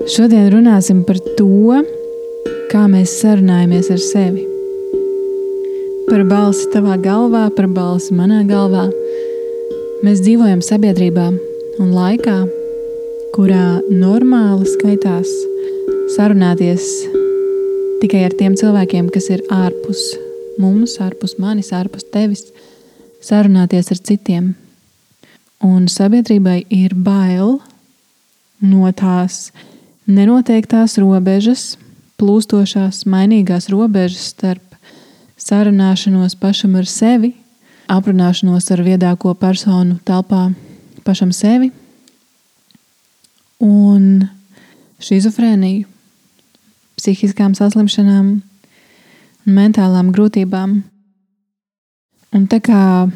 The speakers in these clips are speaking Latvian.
Šodien runāsim par to, kā mēs sarunājamies ar sevi. Par balsi tavā galvā, par balsi manā galvā. Mēs dzīvojam sabiedrībā un laikā, kurā normāli skaitās sarunāties tikai ar tiem cilvēkiem, kas ir ārpus mums, ārpus manis, ārpus tevis, sarunāties ar citiem. Un sabiedrībai ir bail no tās nenoteiktās robežas, plūstošās, mainīgās robežas starp sarunāšanos pašam ar sevi, aprunāšanos ar viedāko personu telpā pašam sevi un šizofrēniju, psihiskām saslimšanām un mentālām grūtībām. Un tā kā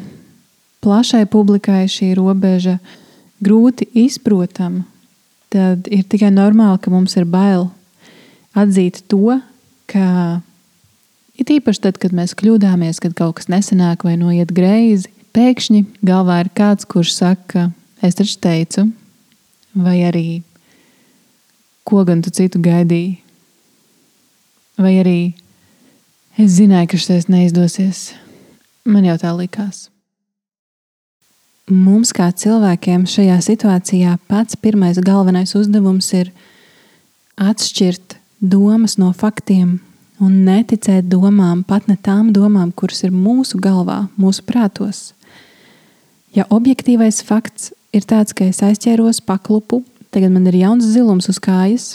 plašai publikai šī robeža grūti izprotama, tad ir tikai normāli, ka mums ir bail atzīt to, ka it īpaši tad, kad mēs kļūdāmies, kad kaut kas nesanāk vai noiet greizi, pēkšņi galvā ir kāds, kurš saka, es taču teicu, vai arī ko gan tu citu gaidīji, vai arī es zināju, ka šis neizdosies, man jau tā likās. Mums kā cilvēkiem šajā situācijā pats pirmais galvenais uzdevums ir atšķirt domas no faktiem un neticēt domām, pat ne tām domām, kuras ir mūsu galvā, mūsu prātos. Ja objektīvais fakts ir tāds, ka es aizķēros paklupu, tagad man ir jauns zilums uz kājas,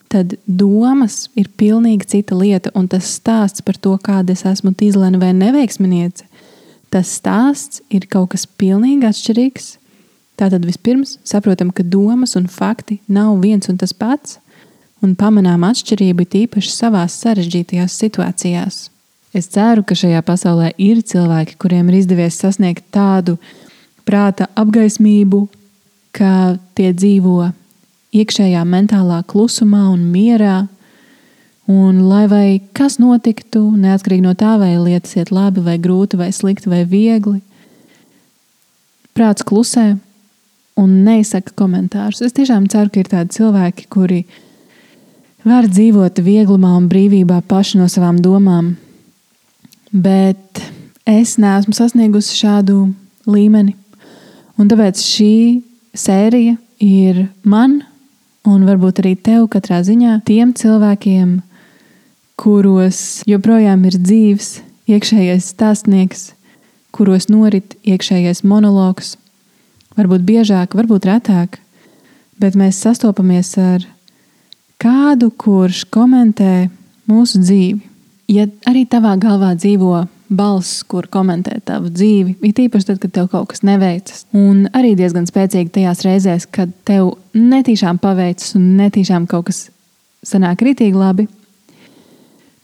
tad domas ir pilnīgi cita lieta, un tas stāsts par to, kāda es esmu tīzlene vai neveiksminiece, tas stāsts ir kaut kas pilnīgi atšķirīgs. Tātad vispirms saprotam, ka domas un fakti nav viens un tas pats, un pamanām atšķirību tīpaši savās sarežģītajās situācijās. Es ceru, ka šajā pasaulē ir cilvēki, kuriem ir izdevies sasniegt tādu prāta apgaismību, ka tie dzīvo iekšējā mentālā klusumā un mierā, un lai vai kas notiktu, neatkarīgi no tā, vai lietas iet labi, vai grūti, vai slikti, vai viegli, prāts klusē un neizsaka komentārus. Es tiešām ceru, ka ir tādi cilvēki, kuri var dzīvot vieglumā un brīvībā paši no savām domām, bet es neesmu sasniegusi šādu līmeni. Un tāpēc šī sērija ir man un varbūt arī tev katrā ziņā tiem cilvēkiem, kuros joprojām ir dzīves iekšējais stāstnieks, kuros norit iekšējais monologs, varbūt biežāk, varbūt retāk, bet mēs sastopamies ar kādu, kurš komentē mūsu dzīvi. Ja arī tavā galvā dzīvo balss, kur komentē tavu dzīvi, it īpaši tad, kad tev kaut kas neveicas, un arī diezgan spēcīgi tajās reizēs, kad tev netīšām paveicas un netīšām kaut kas sanāk ritīgi labi,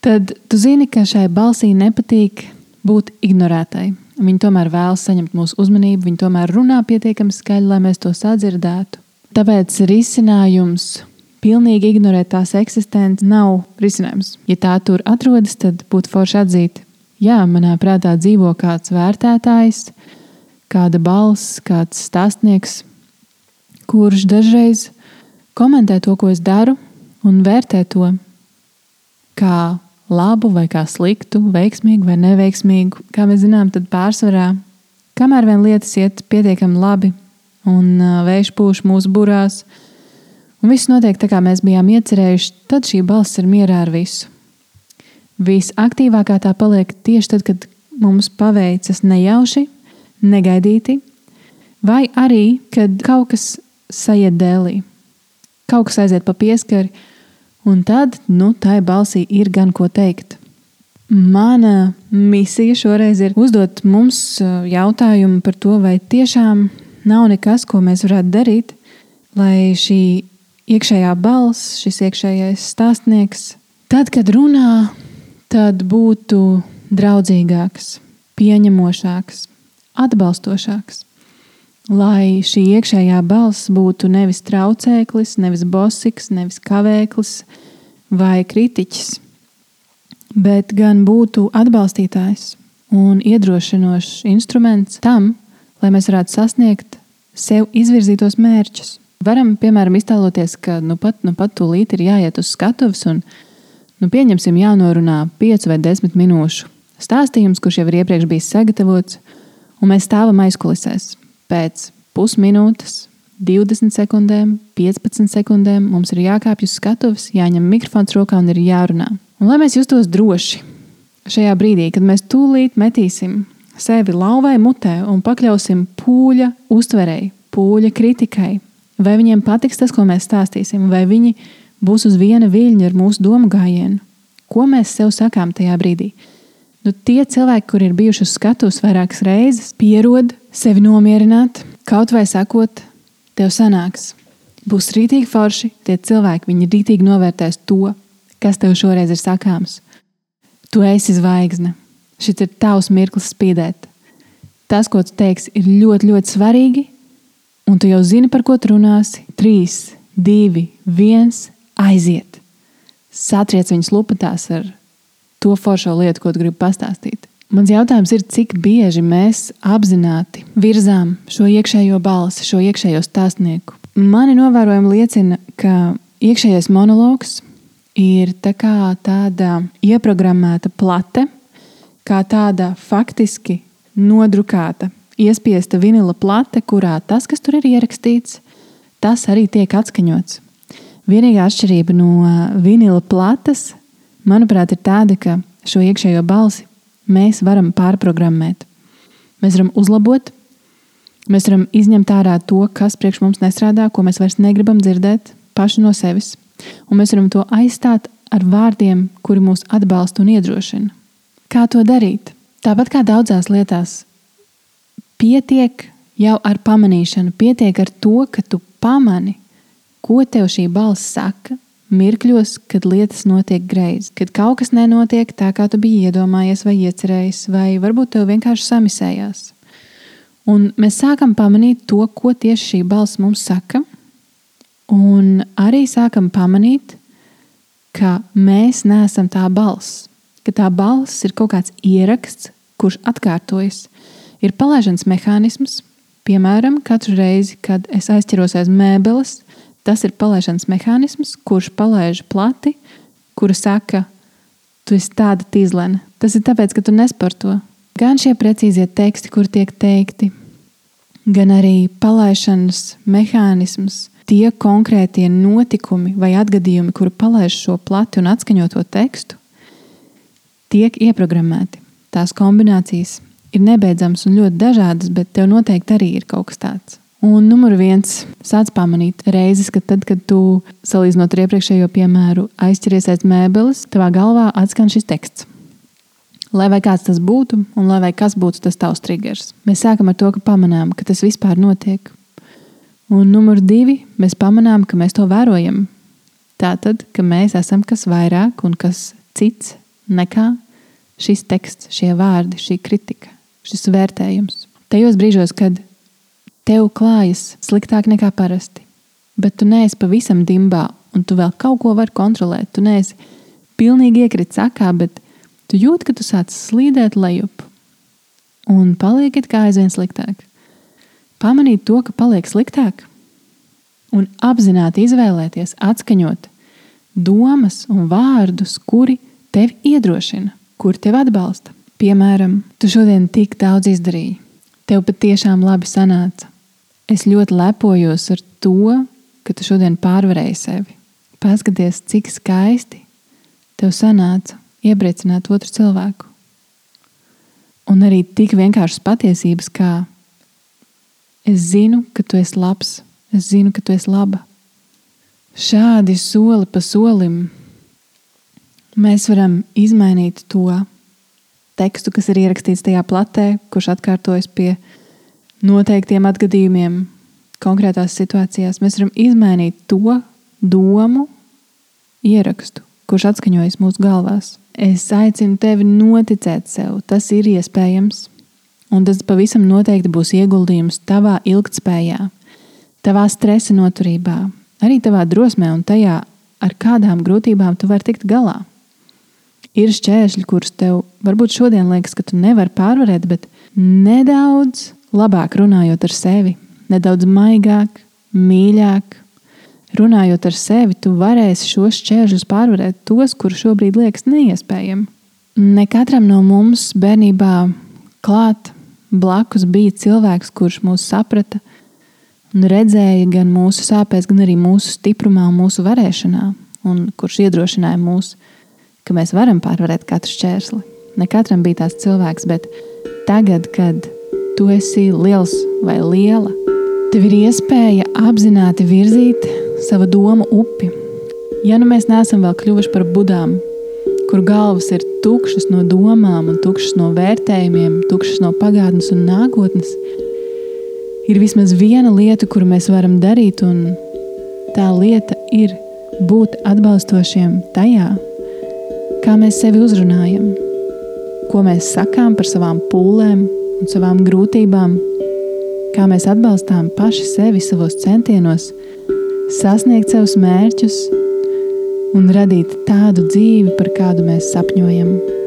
tad tu zini, ka šai balsī nepatīk būt ignorētai. Viņi tomēr vēlas saņemt mūsu uzmanību, viņi tomēr runā pietiekami skaļi, lai mēs to sadzirdētu. Tāpēc risinājums pilnīgi ignorēt tās eksistenci nav risinājums. Ja tā tur atrodas, tad būtu forši atzīt. Jā, manā prātā dzīvo kāds vērtētājs, kāda balss, kāds stāstnieks, kurš dažreiz komentē to, ko es daru, un vērtē to kā labu vai kā sliktu, veiksmīgu vai neveiksmīgu. Kā mēs zinām, tad pārsvarā, kamēr vien lietas iet pietiekami labi un vējš pūš mūsu burās, un viss notiek tā, kā mēs bijām iecerējuši, tad šī balss ir mierā ar visu. Visaktīvākā tā paliek tieši tad, kad mums paveicas nejauši, negaidīti, vai arī, kad kaut kas sajiet dēlī, kaut kas aiziet pa pieskari, un tad, tai balsī ir gan ko teikt. Mana misija šoreiz ir uzdot mums jautājumu par to, vai tiešām nav nekas, ko mēs varētu darīt, lai šī iekšējā balss, šis iekšējais stāstnieks, tad, kad runā, tad būtu draudzīgāks, pieņemošāks, atbalstošāks. Lai šī iekšējā balss būtu nevis traucēklis, nevis bosiks, nevis kavēklis vai kritiķis, bet gan būtu atbalstītājs un iedrošinošs instruments tam, lai mēs varētu sasniegt sev izvirzītos mērķus. Varam, piemēram, iztēloties, ka nu pat tūlīt ir jāiet uz skatuves un pieņemsim jānorunā 5 vai 10 minūšu stāstījums, kurš jau ir iepriekš bijis sagatavots, un mēs stāvam aizkulisēs. Pēc pusminūtes, 20 sekundēm, 15 sekundēm mums ir jākāpj uz skatuves, jāņem mikrofons rokā un ir jārunā. Un lai mēs justos droši šajā brīdī, kad mēs tūlīt metīsim sevi lauvai mutē un pakļausim pūļa uztverei, pūļa kritikai, vai viņiem patiks tas, ko mēs stāstīsim, vai viņi būs uz viena viļņa ar mūsu domu gājienu. Ko mēs sev sakām tajā brīdī? Tie cilvēki, kur ir bijuši uz skatuves vairākas reizes, pierod sevi nomierināt, kaut vai sakot, tev sanāks. Būs rītīgi forši, tie cilvēki, viņi rītīgi novērtēs to, kas tev šoreiz ir sakāms. Tu esi zvaigzne. Šis ir tavs mirklis spīdēt. Tas, ko tu teiksi, ir ļoti, ļoti svarīgi, un tu jau zini, par ko tu runāsi. 3, 2, 1, aiziet. Satriec viņus lupatās ar to foršo lietu, ko tu gribi pastāstīt. Mans jautājums ir, cik bieži mēs apzināti virzām šo iekšējo balsi, šo iekšējo stāstnieku. Mani novērojumi liecina, ka iekšējais monologs ir tāda ieprogrammēta plate, kā tāda faktiski nodrukāta, iespiesta vinila plate, kurā tas, kas tur ir ierakstīts, tas arī tiek atskaņots. Vienīgā atšķirība no vinila plates, manuprāt, ir tāda, ka šo iekšējo balsi mēs varam pārprogrammēt. Mēs varam uzlabot, mēs varam izņemt ārā to, kas priekš mums nestrādā, ko mēs vairs negribam dzirdēt paši no sevis. Un mēs varam to aizstāt ar vārdiem, kuri mūs atbalsta un iedrošina. Kā to darīt? Tāpat kā daudzās lietās, pietiek jau ar pamanīšanu, pietiek ar to, ka tu pamani, ko tev šī balss saka, mirkļos, kad lietas notiek greizi, kad kaut kas nenotiek tā, kā tu biji iedomājies vai iecerējis, vai varbūt tev vienkārši samisējās. Un mēs sākam pamanīt to, ko tieši šī balss mums saka, un arī sākam pamanīt, ka mēs neesam tā balss, ka tā balss ir kaut kāds ieraksts, kurš atkārtojas. Ir palaišanas mehānisms, piemēram, katru reizi, kad es aizķeros aiz mēbeles, tas ir palaišanas mehānisms, kurš palaiž plati, kura saka, tu esi tāda tīzlene. Tas ir tāpēc, ka tu nesporto. Gan šie precīzie teksti, kur tiek teikti, gan arī palaišanas mehānisms, tie konkrētie notikumi vai atgadījumi, kuri palaiž šo plati un atskaņoto tekstu, tiek ieprogrammēti. Tās kombinācijas ir nebeidzamas un ļoti dažādas, bet tev noteikti arī ir kaut kas tāds. Un numur 1, sāc pamanīt reizes, ka tad, kad tu, salīdzinot ar iepriekšējo piemēru, aizķeries aiz mēbeles, tavā galvā atskan šis teksts. Lai vai kāds tas būtu, un lai vai kas būtu tas tavs triggers. Mēs sākam ar to, ka pamanām, ka tas vispār notiek. Un numur 2, mēs pamanām, ka mēs to vērojam. Tātad, ka mēs esam kas vairāk un kas cits nekā šis teksts, šie vārdi, šī kritika, šis vērtējums. Tajos brīžos, kad tev klājas sliktāk nekā parasti, bet tu neesi pavisam dimbā un tu vēl kaut ko vari kontrolēt. Tu neesi pilnīgi iekrits sakā, bet tu jūti, ka tu sāc slīdēt lejup un paliek it kā aizvien sliktāk. Pamanīt to, ka paliek sliktāk un apzināti izvēlēties, atskaņot domas un vārdus, kuri tevi iedrošina, kuri tevi atbalsta. Piemēram, tu šodien tik daudz izdarīji. Tev patiešām labi sanāca. Es ļoti lepojos ar to, ka tu šodien pārvarēji sevi. Paskaties, cik skaisti tev sanāca iepriecināt otru cilvēku. Un arī tik vienkāršas patiesības, kā es zinu, ka tu esi labs, es zinu, ka tu esi laba. Šādi soli pa solim mēs varam izmainīt to tekstu, kas ir ierakstīts tajā platē, kurš atkārtojas pie noteiktiem atgadījumiem konkrētās situācijās. Mēs varam izmainīt to domu ierakstu, kurš atskaņojas mūsu galvās. Es aicinu tevi noticēt sev. Tas ir iespējams. Un tas pavisam noteikti būs ieguldījums tavā ilgtspējā, tavā stresa noturībā, arī tavā drosmē un tajā, ar kādām grūtībām tu vari tikt galā. Ir šķēršļi, kurus tev varbūt šodien liekas, ka tu nevari pārvarēt, bet nedaudz labāk runājot ar sevi, nedaudz maigāk, mīļāk. Runājot ar sevi, tu varēsi šos šķēršļus pārvarēt, tos, kuri šobrīd liekas neiespējami. Ne katram no mums bērnībā klāt blakus bija cilvēks, kurš mūs saprata un redzēja gan mūsu sāpēs, gan arī mūsu stiprumā un mūsu varēšanā, un kurš iedrošināja mūs, ka mēs varam pārvarēt katru šķērsli. Ne katram bija tāds cilvēks, bet tagad, kad tu esi liels vai liela, tev ir iespēja apzināti virzīt savu domu upi. Ja nu mēs neesam vēl kļuvuši par budām, kur galvas ir tukšas no domām un tukšas no vērtējumiem, tukšas no pagātnes un nākotnes, ir vismaz viena lieta, kuru mēs varam darīt, un tā lieta ir būt atbalstošiem tajā, kā mēs sevi uzrunājam, ko mēs sakām par savām pūlēm un savām grūtībām, kā mēs atbalstām paši sevi savos centienos, sasniegt savus mērķus un radīt tādu dzīvi, par kādu mēs sapņojam.